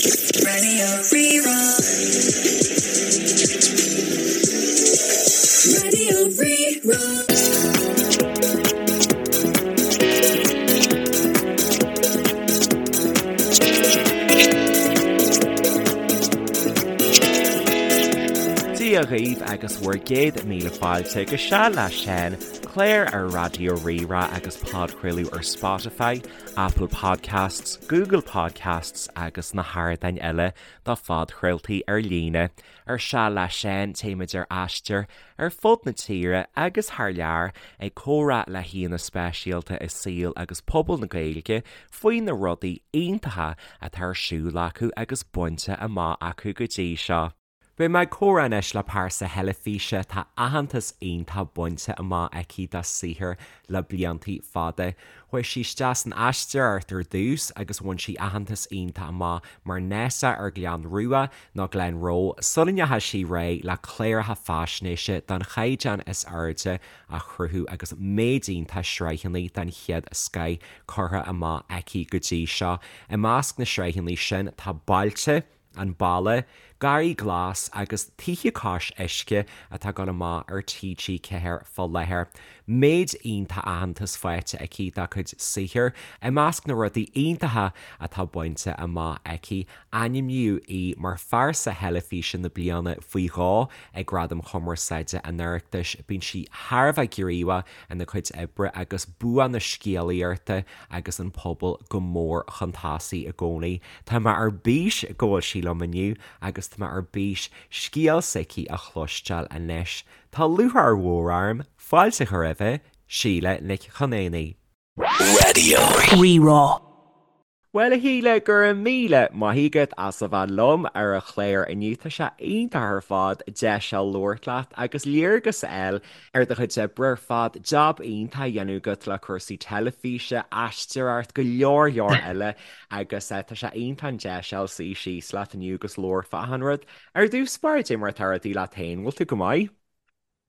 Radio Rí-Rá. Radio Rí-Rá. Dia dhaoibh agus bhur gcéad míle fáilte go Seal le Seán, clár ar Raidió Rí-Rá agus podchraoladh ar Spotify, Apple Podcasts, Google Podcasts agus na hardáin eile do phodchraoltaí ar líne. Ar Seal le Seán, téimid ar aistear ar fud na tíre agus thar lear ag comhrá le haíonna speisialta i saol agus pobal na Gaeilge faoi na rudaí iontacha atá ar siúl acu agus bainte amach acu go dtí seo. Beidh mé ag comhrá anois le pearsa theilifíse atá aitheantas iontach bainte amach aici dá saothar le bliantaí fada. Chuaigh sí isteach san aisteoireacht ar dtús agus bhain sí aitheantas iontach amach mar Nessa ar Gleann Rua nó Glenroe sula ndeachaigh sí ar aghaidh le cláracha faisnéise den chaighdeán is airde a chruthú agus méid iontach sraitheanna den chéad scoith curtha amach aici go dtí seo. I measc na sraitheanna sin tá Bailte, An Baile, Garraí Glas agus Tithe Cois Uisce atá ag dul amach ar TG4 fá láthair. Méid iontach aitheantas faighte aici dá cuid saothair. I measc na rudaí iontacha atá bainte amach aici, ainmníodh í mar Phearsa Theilifíse na Bliana faoi dhó ag Gradaim Chumarsáide an Oireachtais. Bíonn sí thar a bheith gníomhach ina cuid oibre agus bua na scéalaíochta agus an pobal go mór chun tosaigh i gcónaí. Tá mé ar bís go bhfuil sí liom inniu agus tá mé ar bís scéal s'aici a chloisteáil anois. Tá lúcháir mhór orm fáilte a chur roimhe, Síle Nic Chonaonaigh. Raidió Rí-Rá. Bhuel a Shíle, go raibh míle maith agat as a bheith liom ar an chlár inniu. Tá sé iontach ar fad deis a labhairt leat agus léargas a fháil ar do chuid oibre ar fad, jab iontach á dhéanamh agat le cúrsaí teilifíse, aisteoireacht, go leor leor eile agus tá sé iontach an deis a fháil suí síos leat inniu agus labhairt fá achan rud. Ar dtús báire, cad é mar atá rudaí leat féin, bhfuil tú go maith?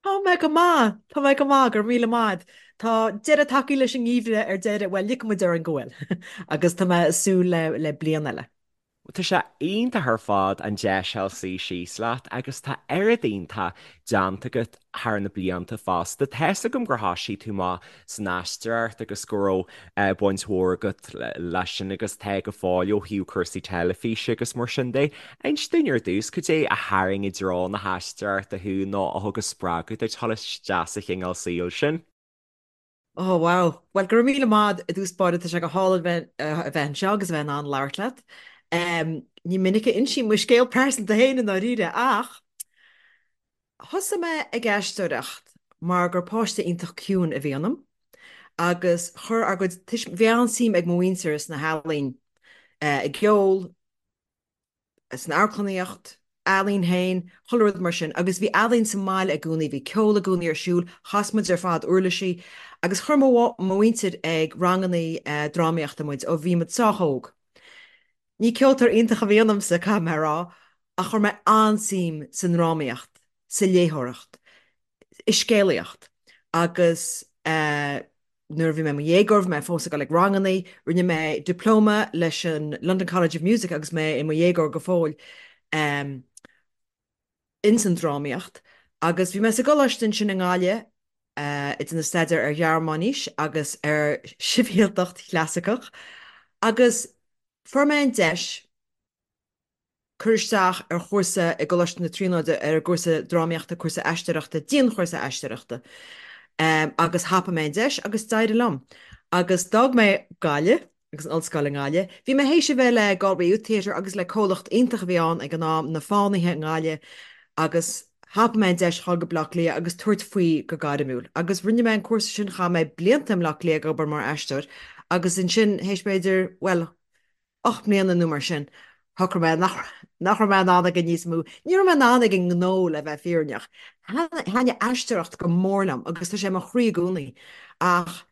Tá mé go maith, tá mé go maith, go raibh míle maith. Tá deireadh tagtha leis an ngeimhreadh ar deireadh, bhuel, ligfidh muid orainn go bhfuil, agus tá mé ag súil le le bliain eile. Tá sé iontach ar fad an deis a fháil suí síos leat agus tá oiread iontach déanta agat thar na blianta fosta. Tá's agam gur thoisigh tú amach san aisteoireacht agus go raibh baint mhór agat leis sin agus tá go fóill ó thaobh cúrsaí teilifíse agus mar sin de. Inis dúinn ar dtús, cad é a tharraing i dtreo na haisteoireachta thú nó a thug an spreagadh duit dul isteach sa chineál saoil sin? Oh wow. Bhuel, go raibh míle maith i dtús báire, tá sé go hálainn bheith a bheith anseo agus a bheith in ann labhairt leat. Ní minic a insím mo scéal pearsanta féin i ndáiríre ach Thosaigh mé ag aisteoireacht mar gur páiste iontach ciúin a bhí ionam agus chuir ár gcuid tuis-, bhí an-suim ag mo mhuintir sna healaín, i gceol, san amharclannaíocht, ealaín féin, chuile rud mar sin agus bhí ealaín sa mbaile i gcónaí, bhí ceol i gcónaí ar siúl, chas muid ar fad uirlisí agus chuir mo mhuintir ag rangannaí drámaíochta muid ó bhí muid sách óg. Ní ceoltóir iontach a bhí ionamsa, caithfidh mé a rá, ach chuir mé an-suim sa ndrámaíocht, sa léitheoireacht, i scéalaíocht agus nuair a bhí mé i mo dhéagóir bhí mé fós ag dul ag rangannaí, rinne mé diplóma leis an London College of Music agus mé i mo dhéagóir go fóill ins an drámaíocht agus bhí mé sa gcoláiste ansin i nGaillimh ag déanamh staidéar ar Ghearmáinis agus ar Shibhialtacht Chlasaiceach agus fuair mé an deis cur isteach ar chúrsa i gColáiste na Tríonóide ar an gcúrsa drámaíochta, cúrsa aisteoireachta, dianchúrsa aisteoireachta agus thapaigh mé an deis agus d'éirigh liom. Agus d'fhág mé Gaillimh agus an ollscoil i nGaillimh. Bhí mé théis a bheith le Galway Youth Theatre agus le comhlacht iontach a bhí ann ag an am, Na Fánaithe i nGaillimh agus thapaigh mé an deis dhul go Bleá Cliath agus tabhairt faoi go gairmiúil. Agus rinne mé an cúrsa sin, chaith mé blianta i mBleá Cliath ag obair mar aisteoir agus ansin théis b'fhéidir, bhuel, 8 mbliana nó mar sin, shocraigh mé nach nach raibh mé in ann aige níos mó. Ní raibh mé in ann ag an ngnó le bheith fírinneach. Thaitnigh aisteoireacht go mór liom agus tá sé i mo chroí i gcónaí ach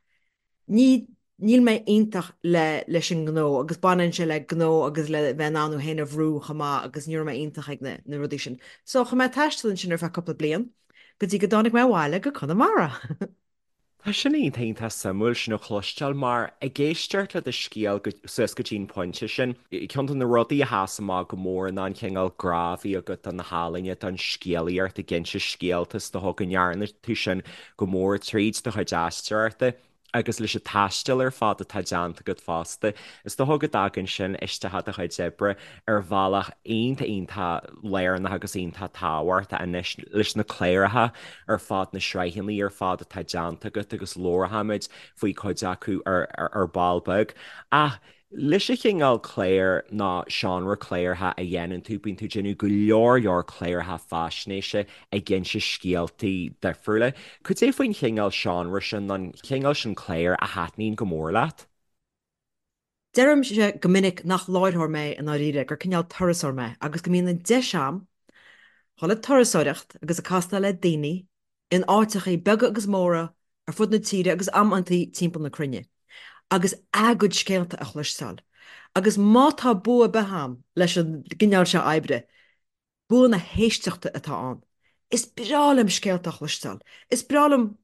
ní níl mé iontach le leis an ngnó agus baineann sé le gnó agus le bheith in ann thú féin a bhrú chomh maith agus ní raibh mé iontach ag na na rudaí sin. So chuaigh mé ag taisteal ansin ar feadh cúpla bliain go dtí go dtáinig mé abhaile go Conamara. Tá sin iontach iontach suimiúil sin a chloisteáil mar ag éisteacht le do scéal suas go dtí an pointe sin, ceann de na rudaí a sheas amach go mór ná an cineál grá a bhí agat do na healaíona, don scéalaíocht, ag inse scéalta, is dócha go ndearna tú sin go mór tríd do chuid aisteoireachta. Agus leis an taisteal ar fad atá déanta agat fosta, is dócha go dtagann sin isteach i do chuid oibre ar bhealach iontach iontach lárnach agus iontach tábhachtach anois leis na cláracha ar fad, na sraitheanna ar fad atá déanta agat agus labharfaimid faoi cuid acu ar ball beag. Ach Leis an chineál clár nó seánra cláracha a dhéanann tú, bíonn tú ag déanamh go leor leor cláracha faisnéise ag inse scéaltaí difriúla. Cad é faoin chineál seánra sin nó an cineál sin cláir a thaitníonn go mór leat? Deirimse go minic nach láithreoir mé i ndáiríre, gur cineál turasóir mé agus go mbíonn an deis a'm dhul ag turasóireacht agus ag castáil le daoine in áiteachaí beaga agus móra ar fud na tíre agus amantaí timpeall na cruinne, agus a gcuid scéalta a chloisteáil. Agus má tá bua ar bith a'm leis an gcineál seo oibre, bua na héisteachta atá ann. Is breá liom scéalta a chloisteáil. Is breá liom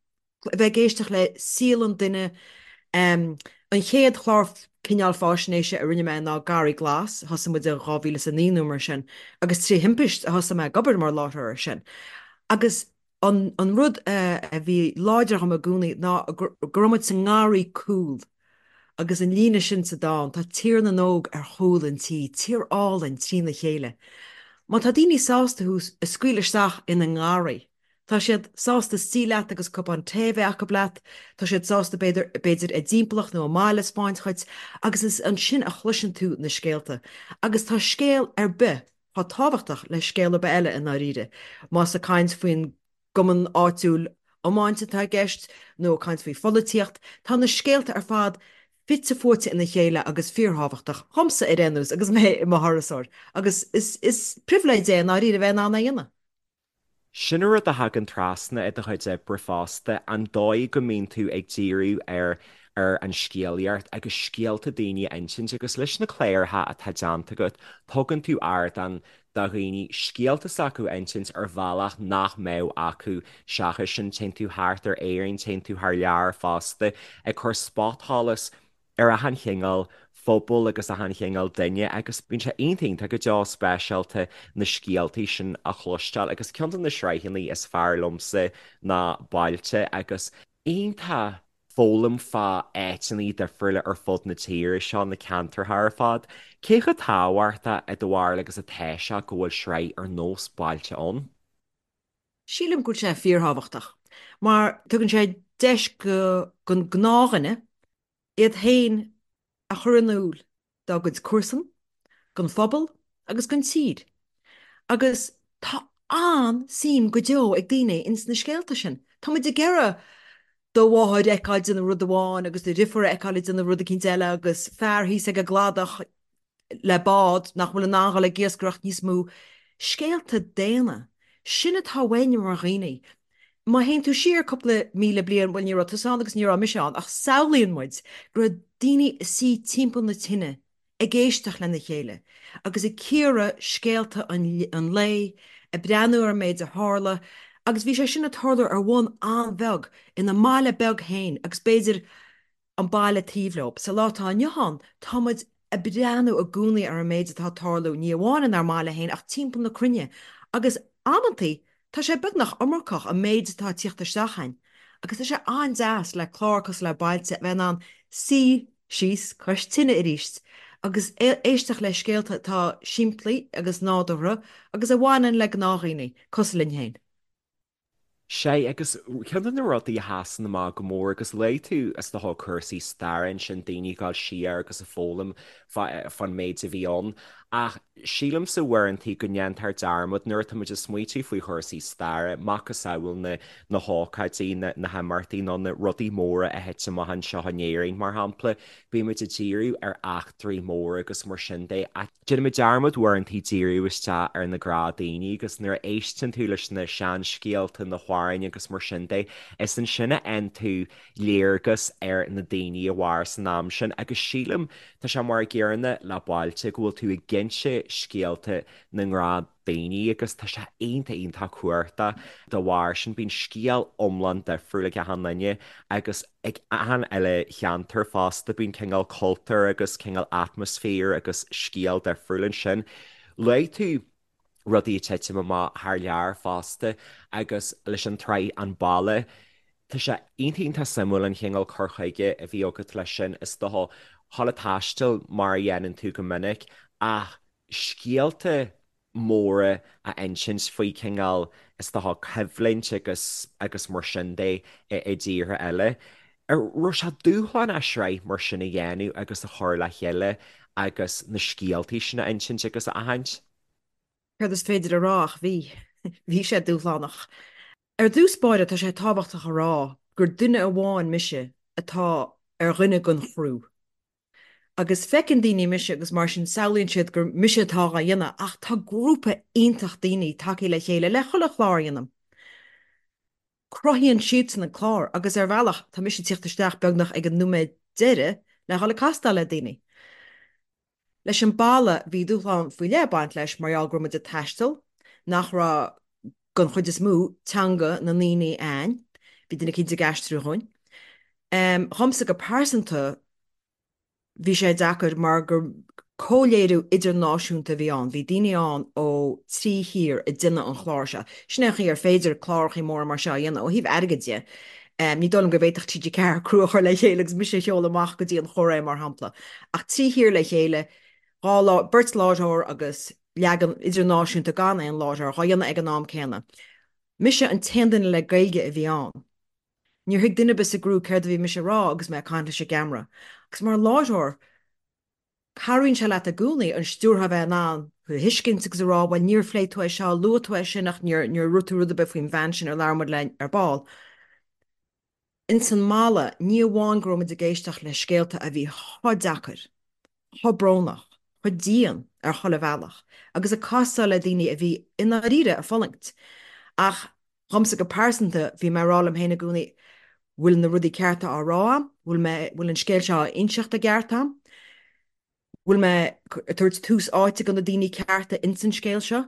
a bheith ag éisteacht le saol an duine. An chéad chlár cineál fáisnéise a rinne mé ná Garraí Glas, thosaigh muid in 2009 nó mar sin, agus trí thimpist a thosaigh mé ag obair mar láithreoir air sin. Agus an rud a bhí láidir dhom i gcónaí ná go raibh muid sa ngarraí cúil agus an líne sin sa dán, tá Tír na nÓg ar chúl an tí, tír álainn trína chéile. Má tá daoine sásta thú a scaoileadh isteach ina ngarraí, tá siad sásta suí leat agus cupán tae a bheith acu leat, tá siad sásta b'fhéidir, b'fhéidir a dtimpeallacht nó a mbaile a 'speáint dhuit agus is ansin a chloiseann tú na scéalta. Agus tá scéal ar bith chomh tábhachtach le scéal ar bith eile i ndáiríre, más ag caint faoin gcumann áitiúil iomáint atá i gceist nó ag caint faoi pholaitíocht, tá na scéalta ar fad fite fuaite ina chéile agus fíorthábhachtach, dhomsa ar aon nós agus mé i mo thurasóir, agus is pribhléid é i ndáiríre a bheith in ann é a dhéanamh. Sin an rud a thagann trasna i do chuid oibre fosta, an dóigh go mbíonn tú ag díriú ar ar an scéalaíocht agus scéalta daoine a insint agus leis na cláracha atá déanta agat, tugann tú ardán do dhaoine scéalta s'acu a insint ar bhealach nach mbeadh acu seachas sin. Téann tú thart ar Éirinn, téann tú thar lear fosta ag cur spotsholas ar achan chineál phobal agus achan chineál duine agus bíonn sé iontach iontach go deo speisialta na scéaltaí sin a chloisteáil agus ceann de na sraitheanna is fearr liomsa ná Bailte agus iontach foghlaim fá áiteanna difriúla ar fud na tíre seo, na ceantracha ar fad. Cé chomh tábhachtach i do bharúil agus atá sé go bhfuil sraith ar nós Bailte ann? Sílim go bhfuil sé fíorthábhachtach mar tugann sé deis don gnáthdhuine iad féin a chur in iúl dá gcuid comharsan, don phobal agus don tír. Agus tá an-suim go deo ag daoine ins na scéalta sin. Tá muid ag iarraidh do mháthair a fheiceáil ag déanamh rud amháin agus do dhriofúr a fheiceáil ag déanamh rud eicínt eile agus fear thíos ag an gcladach le bád nach bhfuil in ann dhul ag iascaireacht níos mó. Scéalta daonna. Sin atá uainn mar dhaoine. Má théann tú siar cúpla míle bliain, bhuel ní raibh tusa ann agus ní raibh mise ann, ach samhlaíonn muid go raibh daoine ag suí timpeall na tine ag éisteacht lena chéile agus ag cíoradh scéalta an lae, ag breathnú ar an méid a tharla agus bhí sé sin ag tarlú ar bhonn an-bheag ina mbaile beag féin agus b'fhéidir an baile taobh leo. Sa lá atá inniu ann, tá muid ag breathnú i gcónaí ar an méid atá ag tarlú, ní amháin inár mbaile féin ach timpeall na cruinne, agus amantaí tá sé beagnach iomarcach an méid atá ag tíocht isteach a'inn. Agus tá sé an-deas le clár cosúil le Bailte a bheith in ann suí síos cois tine arís agus éisteacht le scéalta atá simplí agus nádúrtha agus a bhaineann le gnáthdhaoine cosúil linn féin. Sea, agus ceann de na rudaí a sheasann amach go mór, agus luaigh tú, is dócha, cúrsaí staire ansin, daoine ag dul siar agus ag foghlaim fán méid a bhí ann, ach sílimse uaireantaí go ndéantar dearmad nuair atá muid ag smaoitiú faoi chúrsaí staire, macasamhail na na hócáidí, na na himeachtaí nó na rudaí móra a thit amach anseo in Éirinn, mar shampla, bímid ag díriú ar eachtraí móra agus mar sin de, ach. Déanaimid dearmad uaireantaí díriú isteach ar na gnáthdhaoine agus nuair a éisteann tú leis na seanscéalta, na. mhaireann agus mar sin de. Is ansin a fhaigheann tú léargas ar na daoine a mhair san am sin agus sílim, tá sé mar a gcéanna le bailte, go bhfuil tú ag inse scéalta na ngnáthdhaoine agus tá sé iontach iontach cumhachtach dá bharr sin. Bíonn scéal iomlán difriúil ag achan duine agus ag achan uile cheantar fosta, bíonn cineál cultúr agus cineál atmaisféar agus scéal difriúil ansin. Luaigh tú rudaí ag titim amach thar lear fosta agus leis an tsraith An Balla. Tá sé iontach iontach suimiúil an chineál cur chuige a bhí agat leis sin. Is dócha, dhul ag taisteal mar a dhéanann tú go minic ach scéalta móra a insint faoi chineál, is dócha, coimhlint agus agus mar sin de i dtíortha eile. An raibh sé dúshlánach sraith mar sin a dhéanamh agus a chur le chéile agus na scéaltaí sin a insint agus a aithint? Céard is féidir a rá ach bhí. Bhí sé dúshlánach. Ar dtús báire tá sé tábhachtach a rá gur duine amháin mise atá ar dhuine den chriú. Agus feiceann daoine mise agus mar sin samhlaíonn siad gur mise atá á dhéanamh ach tá grúpa iontach daoine tagtha le chéile le chuile chlár a dhéanamh. Cruthaíonn siadsan an clár agus ar bhealach tá mise ag tíocht isteach beagnach ag an nóiméad deiridh le dhul ag castáil le daoine. Leis an balla bhí dúshlán faoi leith ag baint leis mar gheall go raibh muid ag taisteal, nach raibh, den chuid is mó, teanga na ndaoine a'ainn. Bhí duine eicínt ag aistriú dhúinn. Dhomsa go pearsanta bhí sé deacair mar gur comhléiriú idirnáisiúnta a bhí ann. Bhí daoine ann ó thrí thír ag déanamh an chláir seo. Sin é an chaoi ar féidir clárachaí móra mar seo a dhéanamh ó thaobh airgid de. Ní dóigh liom go bhféadfadh TG4 criú a chur le chéile agus mise a sheoladh amach go dtí an Chóiré, mar shampla. Ach 3 thír le chéile, 2 lá, beirt láithreoir agus leagan idirnáisiúnta gan aon láithreoir dhá dhéanamh ag an am céanna. Mise an t-aon duine le Gaeilge a bhí ann. Níor thuig duine ar bith sa gcriú céard a bhí mise a rá agus mé ag caint leis an gceamara. Agus mar láithreoir, Cabhraíonn sé leat i gcónaí an stiúrthóir a bheith in ann thú a thuiscint agus a rá, bhuel, níor phléigh tú é seo, luaigh tú é sin ach níor, níor dhúirt tú rud ar bith faoin bhean sin ar labhair muid léi ar ball. Ins an mballa, ní amháin go raibh muid ag éisteacht le scéalta a bhí chomh deacair, chomh brónach, chomh dian ar chuile bhealach agus ag castáil le daoine a bhí i ndáiríre ag fulaingt ach Dhomsa go pearsanta, bhí mé ag rá liom féin i gcónaí, bhfuil na rudaí cearta á rá a'm? Bhfuil mé, bhfuil an scéal seo á inseacht i gceart a'm? Bhfuil mé ag tabhairt tús áite do na daoine cearta ins an scéal seo?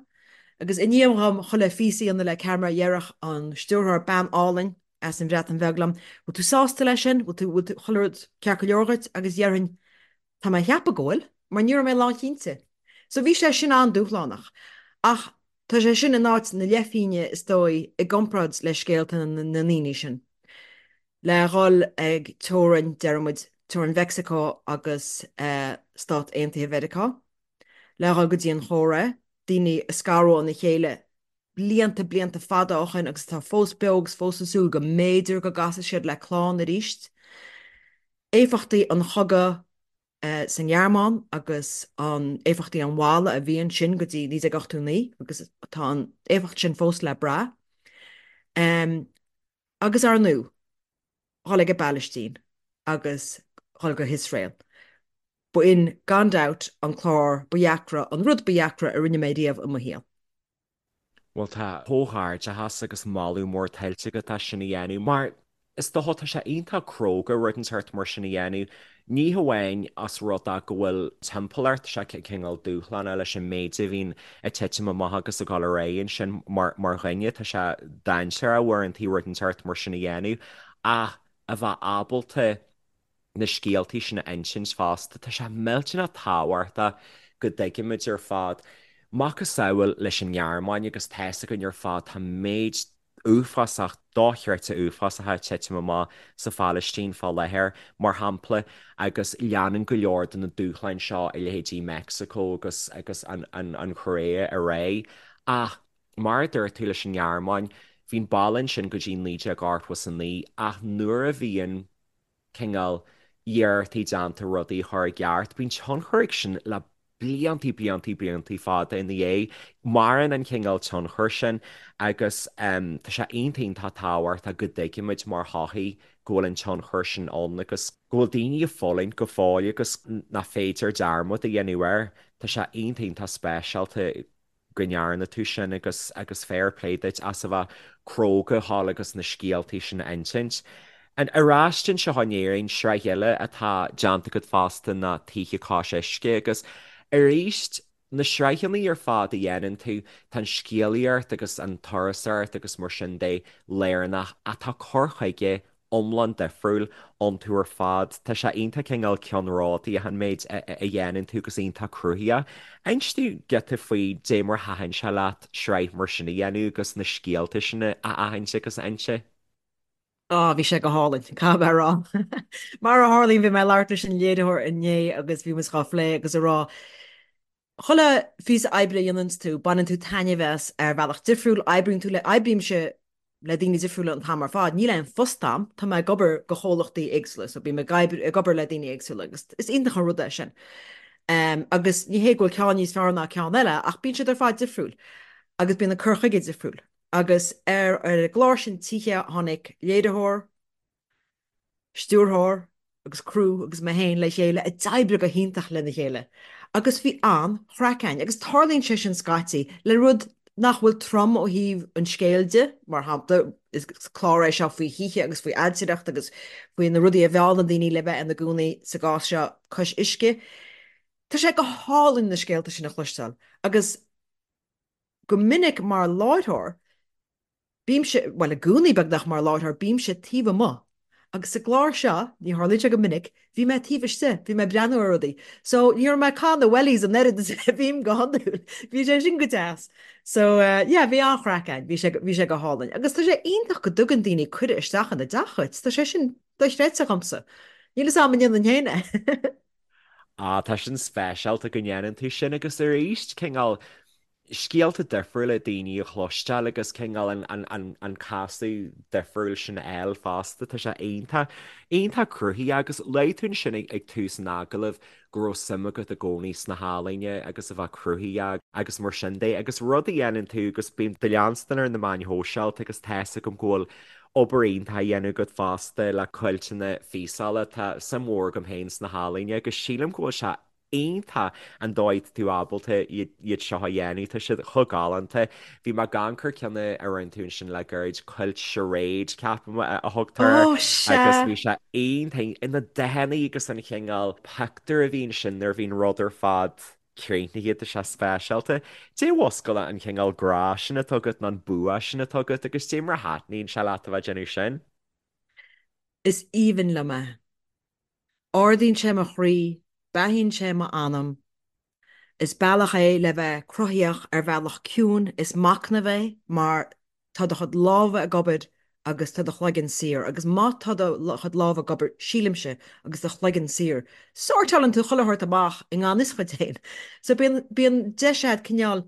Agus i ndiaidh dhom chuile phíosa a dhéanamh le ceamara, dhéarfadh an stiúrthóir, bean álainn as an Bhreatain Bheag liom, bhfuil tú sásta leis sin? Bhfuil tú, bhfuil tú, chuile rud ceart go leor dhuit? Agus dhéarfainn, tá mé a cheapadh go bhfuil, mar ní raibh mé lánchinnte. So bhí sé sin an-dúshlánach. Ach Tá sé sin in áit na leithphinge is dóigh i gcomparáid le scéalta na ndaoine sin. Le dhul ag teorainn, deir muid, teorainn Mheicsiceo agus Stát Aontaithe Mheiriceá, le dhul go dtí an Chóiré, daoine a scaradh óna chéile blianta, blianta fada ó shin agus atá fós beo agus fós ag súil go mb'fhéidir go gcasfaidh siad le clann arís. Éifeachtaí an chogaidh sa nGearmáin agus an éifeachtaí an bhalla a bhí ansin go dtí 1989 agus tá an éifeacht sin fós le brath. Agus ar ndóigh, dhul ag an bPalaistín agus dhul go hIosrael. Ba in gan dabht an clár ba dheacra, an rud ba dheacra a rinne mé riamh i mo shaol. Bhuel, tá comhghairdeachas agus moladh mór tuillte agat as sin a dhéanamh, mar is dócha, tá sé iontach cróga rud inteacht mar sin a dhéanamh, ní hamháin as rud é go bhfuil timpeallacht, sé cineál dúshlánach leis an méid a bhíonn ag titim amach agus ag dul ar aghaidh ansin mar mar dhuine, tá sé dainséarach uaireanta rud inteacht mar sin a dhéanamh, ach a bheith ábalta na scéaltaí sin a insint fosta. Tá sé millteanach tábhachtach go dtuigimid ar fad, macasamhail leis an nGearmáin agus tá's againn ar fad, tá méid uafásach, dochreidte uafásacha ag titim amach sa Phalaistín fá láthair, mar shampla, agus leanann go leor de na dúshláin seo i leithéidí Meicsiceo agus agus an an Chóiré ar aghaidh. Ach mar a dúirt tú leis an nGearmáin, bhí an balla ansin go dtí 1989 ach nuair a bhíonn cineál iarrachtaí déanta rudaí a chur i gceart. Bíonn tionchar ag sin le bliantaí, bliantaí, bliantaí fada ina dhiaidh. Maireann an cineál tionchair sin agus tá sé iontach, iontach tábhachtach go dtuigimid mar shochaí go bhfuil an tionchar sin ann agus go bhfuil daoine ag fulaingt go fóill agus nach féidir dearmad a dhéanamh air. Tá sé iontach, iontach speisialta. go ndearna tú sin agus agus fair play duit as a bheith cróga thall agus na scéaltaí sin a insint. And ar ais anseo in Éirinn, sraith eile atá déanta agat fosta ná Tithe Cois Uisce agus arís na sraitheanna ar fad a dhéanann tú, tá an scéalaíocht agus an turasóireacht agus mar sin de lárnach ach tá cur chuige iomlán difriúil iontu ar fad. Tá sé iontach cineál ceannródaíoch an méid a dhéanann tú agus iontach cruthaitheach. Inis dúinn giota faoi dé mar a thaitin sé leat sraith mar sin a dhéanamh agus na scéalta sin a aithint agus a inse. Á, bhí sé go hálainn, caithfidh mé a rá. Mar a tharlaíonn, bhí mé ag labhairt leis an léiritheoir inné agus bhí muid dhá phlé agus a rá, chuile phíosa oibre a dhéananns tú, baineann tú taitneamh as ar bhealach difriúil, oibríonn tú le, oibrímse le daoine difriúla an t-am ar fad, níl aon phost a'm, tá mé ag obair do chomhlachtaí éagsúla, so bím ag obair, ag obair le daoine éagsúla agus is iontach an rud é sin. Agus ní hé go bhfuil ceann níos fearr ná ceann eile ach bíonn siad ar fad difriúil agus bíonn an cur chuige difriúil. Agus ar an gclár sin Tithe tháinig léiritheoir, stiúrthóir agus criú agus mé féin le chéile a d'oibrigh go hiontach lena chéile. Agus bhí an-chraic againn. Agus tarlaíonn sé sin scaití le rud nach bhfuil trom ó thaobh an scéil de, mar shampla, is clár é seo faoi thithe agus faoi ailtireacht agus faoi na rudaí a mheallann daoine le bheith ina gcónaí sa gcás seo cois uisce. Tá sé go hálainn na scéalta sin a chloisteáil agus go minic mar láithreoir, bímse, bhuel i gcónaí beagnach mar láithreoir, bímse taobh amuigh. Agus sa gclár seo, ní tharlaíonn sé go minic, bhí mé taobh istigh, bhí mé ag breathnú ar rudaí. So ní raibh mé ag caitheamh na wellies an oiread is a bhím go hiondúil. Bhí sé sin go deas. So yeah, bhí an-chraic againn, bhí sé, bhí sé go hálainn. Agus tá sé iontach go dtugann daoine cuireadh isteach ina dteach dhuit, tá sé sin dochreidte dhomsa. Níl fhios a'm an ndéanfainn féin é. Ah, tá sin speisialta go ndéanann tú sin agus arís, cineál, scéalta difriúla daoine a chloisteáil agus cineál an casadh difriúil sin a fháil fosta. Tá sé iontach, iontach cruthaitheach agus luaigh tú ansin ag tús an agallaimh go raibh suim agat i gcónaí sna healaíona agus a bheith cruthaitheach agus mar sin de agus rud a dhéanann tú agus bím do leanstan ar na meáin shóisialta agus tá's agam go bhfuil obair iontach á dhéanamh agat fosta le cuilteanna físeála. Tá suim mhór agam féin sna healaíona agus sílim go bhfuil sé iontach an dóigh atá tú ábalta iad seo a dhéanamh, tá siad chomh galánta. Bhí mé ag amharc ar ceann a rinne tú ansin le gairid, Quilt Charade, ceapaim a thugtar air, Ó, agus sea! bhí sé iontach, na dathanna agus an chineál pictiúr a bhí ansin nuair a bhíonn rud ar fad críochnaithe, tá sé speisialta. Dé mhuscail an chineál grá sin atá agat nó an bua sin atá agat agus dé mar a thaitníonn sé leat a bheith ag déanamh sin? Is aoibhinn liom é. Ardaíonn sé mo chroí, beathaíonn sé m'anam. Is bealach é le bheith cruthaíoch ar bhealach ciúin, is machnamh é mar tá do chuid lámha ag obair agus tá do chloigeann saor. Agus má tá do chuid lámha ag obair, sílimse, agus do chloigeann saor, sórtálann tú chuile shórt amach i ngan fhios dhuit féin. So bíonn, bíonn deis agat cineál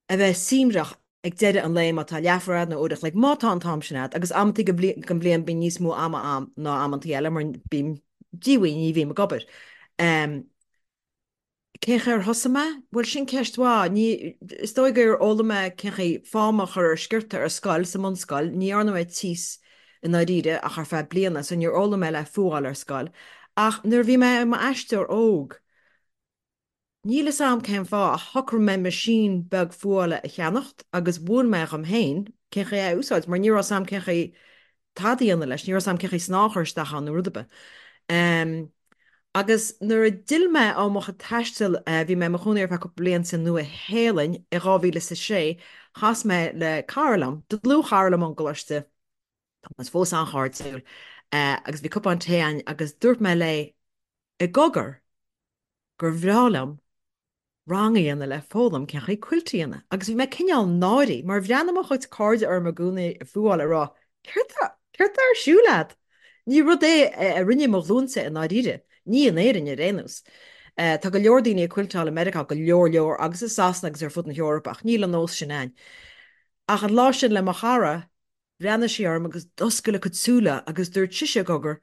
a bheith suaimhneach ag deireadh an lae má tá leathuair agat nó uair a chloig, má tá an t-am sin agat, agus amantaí den bhliain bíonn níos mó ama a'm ná amantaí eile mar bím díomhaoin, ní bhím ag obair. Cén chaoi ar thosaigh mé? Bhuel, sin ceist mhaith. Ní, is dóigh gur fhoghlaim mé cén chaoi fáma a chur ar sciorta ar scoil, sa mbunscoil. Ní dhearna mé tíos i ndáiríre ach ar feadh bliana, so níor fhoghlaim mé le fuáil ar scoil. Ach nuair a bhí mé i m'aisteoir óg, Níl fhios a'm cén fáth ach shocraigh mé meaisín beag fuála a cheannacht agus mhúin mé dhom féin cén chaoi é a úsáid mar ní raibh 's a'm cén chaoi tada a dhéanamh leis, ní raibh 's a'm cén chaoi snáth a chur isteach ann nó rud ar bith. Agus nuair a d'fhill mé ó mo chuid taistil, bhí mé i mo chónaí ar feadh cúpla bliain sa Nua-Shéalainn i 2006, chas mé le cara liom, dlúthchara liom ón gcoláiste, tá muid fós an-chairdiúil, agus bhí cupán tae againn agus dúirt mé léi i gcogar, gur bhreá liom rang a dhéanamh le foghlaim cén chaoi quilt a dhéanamh agus bhí mé cineál náirithe mar bhreathnaigh mo chuid cairde orm i gcónaí ag fuáil ag rá céard tá céard tá ar siúl agat? Ní rud é a rinne mo ghlúinse i ndáiríre, ní in Éirinn ar aon nós. Tá go leor daoine ag quilteáil i Meiriceá, go leor leor, agus i Sasana agus ar fud na hEorpa ach níl an nós sin a'inn. Ach an lá sin le mo chara, bhreathnaigh sí orm agus d'oscail a cuid súile agus dúirt sise i gcogar,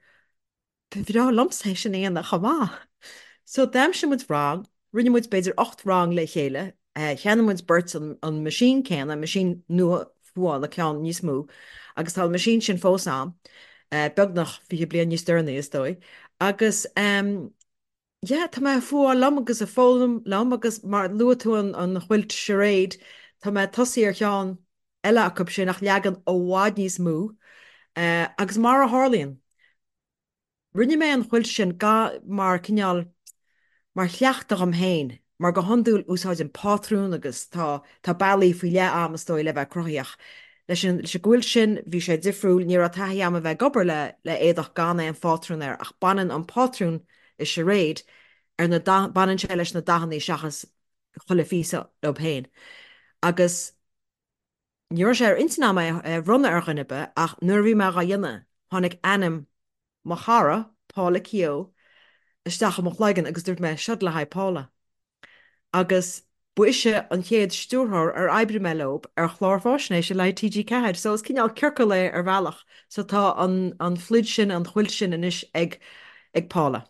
Ba bhreá liomsa é sin a dhéanamh chomh maith. So d'aimsigh muid rang, rinne muid b'fhéidir 8 rang le chéile, cheannaigh muid beirt an meaisín céanna, meaisín nua fuála, ceann níos mó, agus tá an meaisín sin fós a'm, beagnach 20 bliain níos deireanaí is dóigh, agus. Yeah, tá mé ag fuáil liom agus ag foghlaim liom agus mar luaigh tú an an chuilt charade, tá mé ag tosaí ar cheann eile acu sin ach leagan i bhfad níos mó. Agus mar a tharlaíonn, rinne mé an chuilt sin ga mar cineál mar chleachtadh dhom féin, mar go hiondúil úsáidim pátrún agus tá tá bealaí faoi leith a'm is dóigh le bheith cruthaíoch. Leis an leis an gcuilt sin bhí sé difriúil, ní raibh taithí a'm a bheith ag obair le le éadach gan aon phátrún air ach baineann an pátrún i charade ar na baineann sé leis na dathanna seachas chuile phíosa leo féin. Agus ní raibh sé ar intinn a'm é a bhronnadh ar dhuine ar bith ach nuair a bhí mé dhá dhéanamh tháinig ainm mo chara, Paula Keogh, isteach i mo chloigeann agus dúirt mé, seod le haghaidh Paula. Agus ba ise an chéad stiúrthóir ar oibrigh mé leo ar chlár fáisnéise le haghaidh TG4, so is cineál ciorcal é ar bhealach. So tá an an phluid sin, an chuilt sin anois ag ag Paula.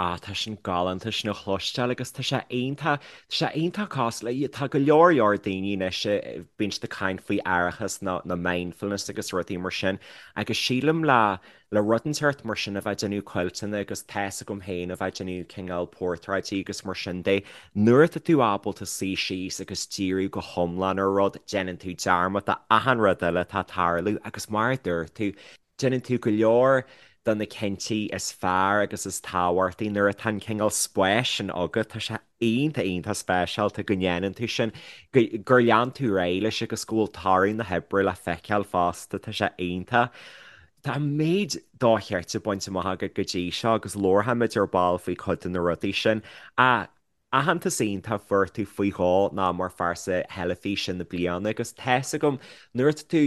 Ah, tá sin galánta sin a chloisteáil agus tá sé iontach, tá sé iontach cosúil le, tá go leor leor daoine anois a bíonn siad ag caint faoi aireachas nó nó mindfulness agus rudaí mar sin agus sílim le le rud inteacht mar sin a bheith ag déanamh cuilteanna agus tá's agam féin a bheith ag déanamh cineál portráidí agus mar sin de, nuair atá tú ábalta suí síos agus díriú go hiomlán ar rud, déanann tú dearmad de achan rud eile atá ag tarlú agus mar a dúirt tú, Déanann tú go leor de na cinntí is fearr agus is tábhachtaí nuair atá an cineál spáis sin agat. Tá sé iontach, iontach speisialta go ndéanann tú sin, gur lean tú ar aghaidh leis agus go bhfuil toradh na hoibre le feiceáil fosta. Tá sé iontach. Tá an méid dochreidte bainte amach agat go dtí seo agus labharfaimid ar ball faoi chuid de na rudaí sin. Ach aitheantas iontach fuair tú faoi dhó ná mar phearsa theilifíse na bliana agus tá's agam nuair atá tú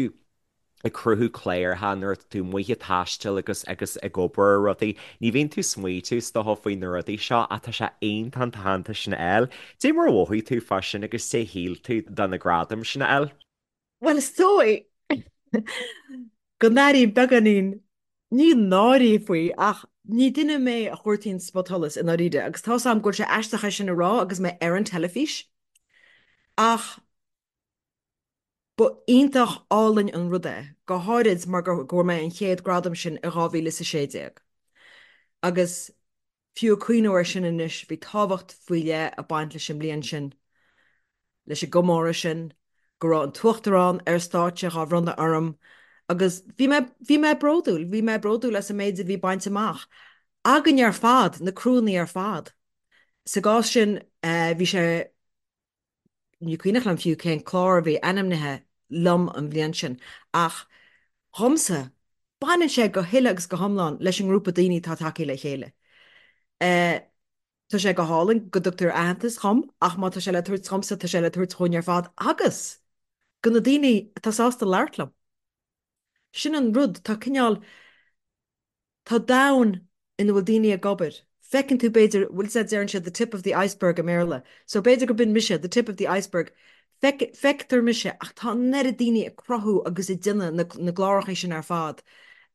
ag cruthú cláracha nuair atá tú amuigh ag taisteal agus agus ag obair ar rudaí, ní bhíonn tú ag smaoitiú is dócha faoi na rudaí seo ach tá sé iontach an t-aitheantas sin a fháil. Dé mar a mhothaigh tú fá sin agus dé shíl tú de na gradaim sin a fháil? Bhuel is dóigh go n-airím beagáinín, ní náirí faoi ach ní duine mé a chuartaíonn spotsholas i ndáiríre agus tá's a'm go bhfuil sé aisteach é sin a rá agus mé ar an teilifís ach Ba iontach álainn an rud é, go háirid mar go bhfuair mé an chéad gradam sin i 2016. Agus fiú ag cuimhniú air sin anois, bhí tábhacht faoi leith ag baint leis an mbliain sin, leis an gcomóradh sin, go raibh an tUachtarán ar stáitse dhá bhronnadh orm agus bhí mé, bhí mé bródúil, bhí mé bródúil as an méid a bhí bainte amach againn ar fad, na criúnna ar fad. Sa gcás sin, bhí sé. Ní cuimhneach liom fiú cén clár a bhí ainmnithe liom an bhliain sin, ach dhomsa, baineann sé go huile agus go hiomlán leis an ngrúpa daoine atá tagtha le chéile. Tá sé go hálainn go dtugtar aitheantas dhom, ach má tá sé le tabhairt dhomsa, tá sé le tabhairt dhúinn ar fad agus do na daoine atá sásta labhairt liom. Sin an rud, tá cineál. Tá domhan ina bhfuil daoine ag obair. Feiceann tú b'fhéidir, bhfuil 's a'd deireann siad the tip of the iceberg i mBéarla. So b'fhéidir go b'in mise, the tip of the iceberg. Feic, feictear mise ach tá an oiread daoine ag cruthú agus ag déanamh na, na gcláracha sin ar fad.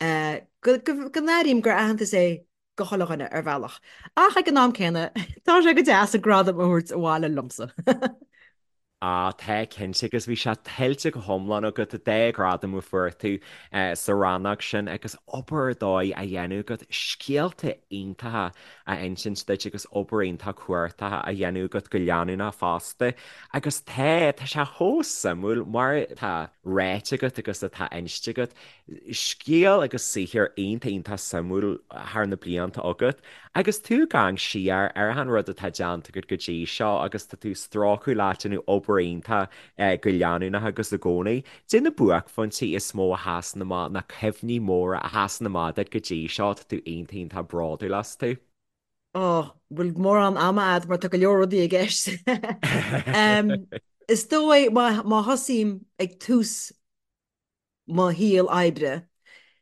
Eh, go, go, go n-airím gur aitheantas é do chuile dhuine ar bhealach. Ach ag an am céanna, tá sé go deas an gradam a thabhairt abhaile liomsa. Ah, tá, cinnte, agus bhí sé tuillte go hiomlán agat, an dá ghradam a fuair tú sa rannóg sin agus obair ar dóigh á dhéanamh agat, scéalta iontacha á insint duit agus obair iontach cumhachtach á dhéanamh agat go leanúnach fosta. Agus tá, tá sé chomh suimiúil mar atá ráite agat agus atá inste agat, scéal agus saothar iontach iontach suimiúil thar na blianta agat. Agus tú ag amharc siar ar achan rud atá déanta agat go dtí seo agus tá tú ag strócadh leat ag déanamh obair iontach go leanúnach agus i gcónaí, dé na buaicphointí is mó a sheasann amach, na cuimhní móra a sheasann amach duit go dtí seo atá tú iontach iontach bródúil astu? Ó, bhfuil mórán ama a'd mar tá go leor rudaí i gceist. Is dóigh má thosaím ag tús mo shaol oibre.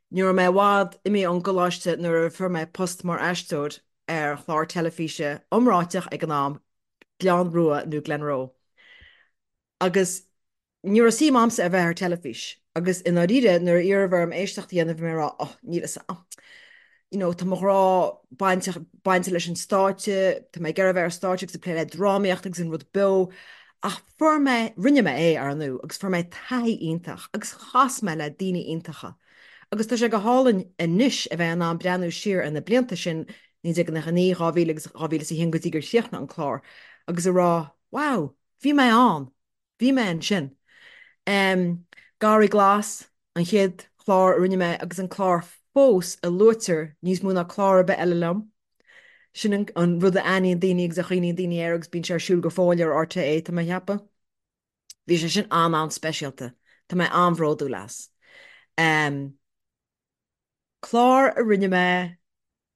Ní raibh mé i bhfad imithe ón gcoláiste nuair a fuair mé post mar aisteoir ar chlár teilifíse iomráiteach ag an am, Gleann Rua nó Glenroe. Agus ní raibh suim a'msa a bheith ar teilifís. Agus i ndáiríre, nuair a iarradh orm éisteacht a dhéanamh bhí mé ag rá, oh, níl fhios a'm. You know, tá mo ghrá bainteach, bainte leis an stáitse, tá mé ag iarraidh a bheith ar stáitse agus ag plé le drámaíocht agus an rud beo. Ach fuair mé, rinne mé é, ar ndú, agus fuair mé taithí iontach agus chas mé le daoine iontacha. Agus tá sé go hálainn anois a bheith in ann breathnú siar ar na blianta sin. 1999, 2000 agus 2001 go dtí gur chríochnaigh an clár, agus a rá, wow, bhí mé ann, bhí mé ansin. Garraí Glas, an chéad chlár a rinne mé agus an clár fós a luaitear níos mó ná clár ar bith eile liom. Sin an rud a aithníonn daoine agus a chuimhníonn daoine air agus bíonn sé ar siúl go fóill ar RTÉ, tá mé a cheapadh. Bhí sé sin an-an-speisialta. Tá mé an-bhródúil as. Clár a rinne mé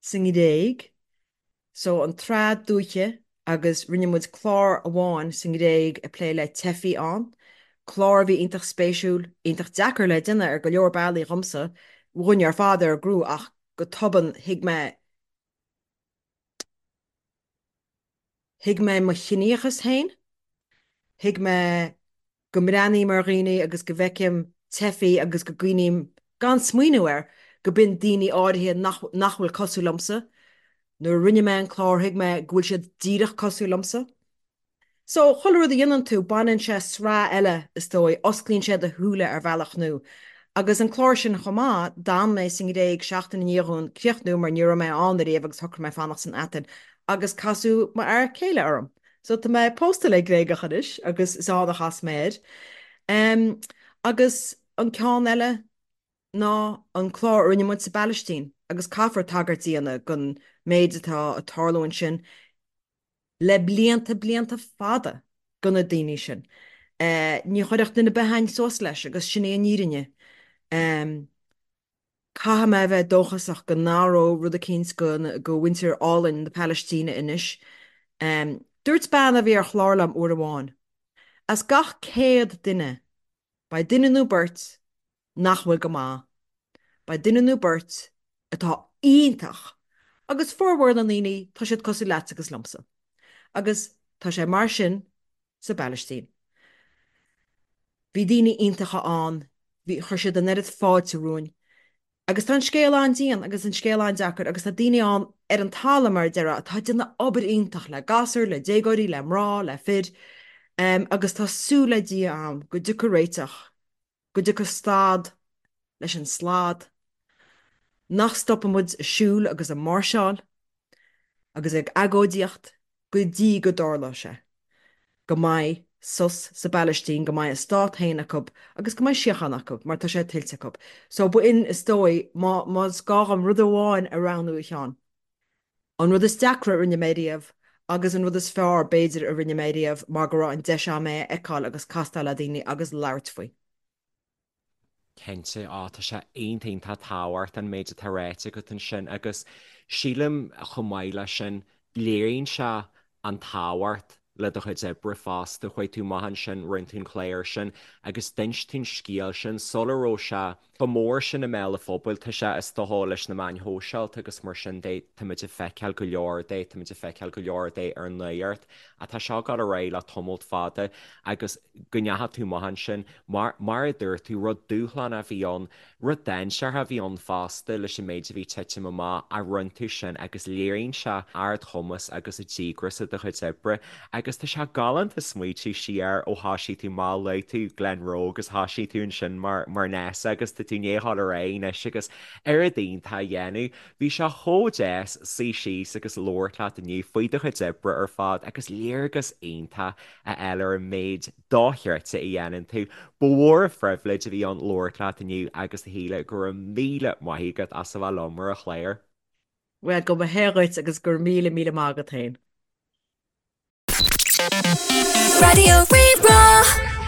sa nGréig, so an tSraith Dúiche agus rinne muid clár amháin sa nGréig ag plé le teifigh ann, clár a bhí iontach spéisiúil, iontach deacair le déanamh ar go leor bealaí dhomsa, dhúinne ar fad ar an gcriú ach go tobann thuig mé, thuig mé mo chiníochas féin, thuig mé go mbreathnaím ar dhaoine agus go bhfeicim teifigh agus go gcuimhním, gan smaoineamh air, go b'in daoine áirithe nach nach bhfuil cosúil liomsa. Nuair a rinne mé an clár thuig mé go bhfuil siad díreach cosúil liomsa. So, chuile rud a dhéanann tú, baineann sé sraith eile, is dóigh, osclaíonn sé do shúile ar bhealach nua. Agus an clár sin chomh maith, d'fhan mé sa nGréig seachtain i ndiaidh dhúinn críochnú mar ní raibh mé ann ariamh agus shocraigh mé fanacht san Atain agus casadh m'fhear céile orm. So tá mé pósta le Gréagach anois agus is ann a chas mé air. Agus an ceann eile ná an clár a rinne muid sa bPalaistín agus caithfear tagairt a dhéanamh don méid atá ag tarlú ansin le blianta, blianta fada do na daoine sin. Ní chuirfeadh duine ar bith againn suas leis agus sin í an fhírinne. Caithfidh mé a bheith dóchasach go n-athróidh rud eicínt go mhuintir álainn na Palaistíne anois. Dúirt bean a bhí ar chlár liom uair amháin, as gach 100 duine, beidh duine nó beirt nach bhfuil go maith, beidh duine nó beirt atá iontach agus formhór na ndaoine tá siad cosúil leatsa agus liomsa. Agus tá sé mar sin sa bPalaistín. Bhí daoine iontacha ann, bhí, chuir siad an oiread fáilte romhainn. Agus tá an scéal an-dian agus an scéal an-deacair agus tá daoine ann ar an talamh, mar a déarfá, atá ag déanamh obair iontach le gasúir, le déagóirí, le mná, le fir, agus tá súil le Dia a'm go dtiocfaidh réiteach, go dtiocfaidh stad leis an slad, nach stopfaidh muid ag siúl agus ag máirseáil agus ag agóidíocht go dtí go dtarlóidh sé, go mbeidh sos sa bPalaistín, go mbeidh a stát féin acu agus go mbeidh síocháin acu, mar tá sé tuillte acu. So b'in, is dóigh, má, más gá dhom rud amháin a roghnú, a Sheáin, an rud is deacra a rinne mé riamh agus an rud is fearr, b'fhéidir, a rinne mé riamh mar go raibh an deis a'm é a fheiceáil agus castáil le daoine agus labhairt faoi. Cinnte, á, tá sé iontach iontach tábhachtach an méid atá ráite agat ansin agus sílim chomh maith leis sin, léiríonn sé an tábhacht le do chuid oibre fosta. Chuaigh tú amach ansin, rinne tú an clár sin agus d'inis tú an scéal sin sula raibh sé chomh mór sin i mbéal an phobail. Tá sé, is dócha, leis na meáin shóisialta agus mar sin de, táimid ag feiceáil go leor de, táimid ag feiceáil go leor de ar an nuacht ach tá seo ag dul ar aghaidh le tamalt fada agus go ndeachaigh tú amach ansin, mar, mar a dúirt tú, rud dúshlánach a bhí ann, rud dainséarach a bhí ann fosta leis an méid a bhí ag titim amach, ach rinne tú sin agus léiríonn sé ardchumas agus an díograis i do chuid oibre agus tá sé galánta smaoitiú siar ó thoisigh tú amach, luaigh tú Glenroe agus thoisigh tú ansin mar, mar nurse agus tá tú i ndiaidh dul ar aghaidh anois agus oiread iontach a dhéanamh. Bhí sé chomh deas suí síos agus labhairt leat inniu faoi do chuid oibre ar fad agus léargas iontach a fháil ar an méid dochreidte a dhéanann tú. Ba mhór an phribhléid a bhí ann labhairt leat inniu agus a Shíle, go raibh míle maith agat as a bheith liom ar an chlár. Bhuel, go mba hé dhuit agus go raibh míle míle maith agat féin. Raidió Rí-Rá.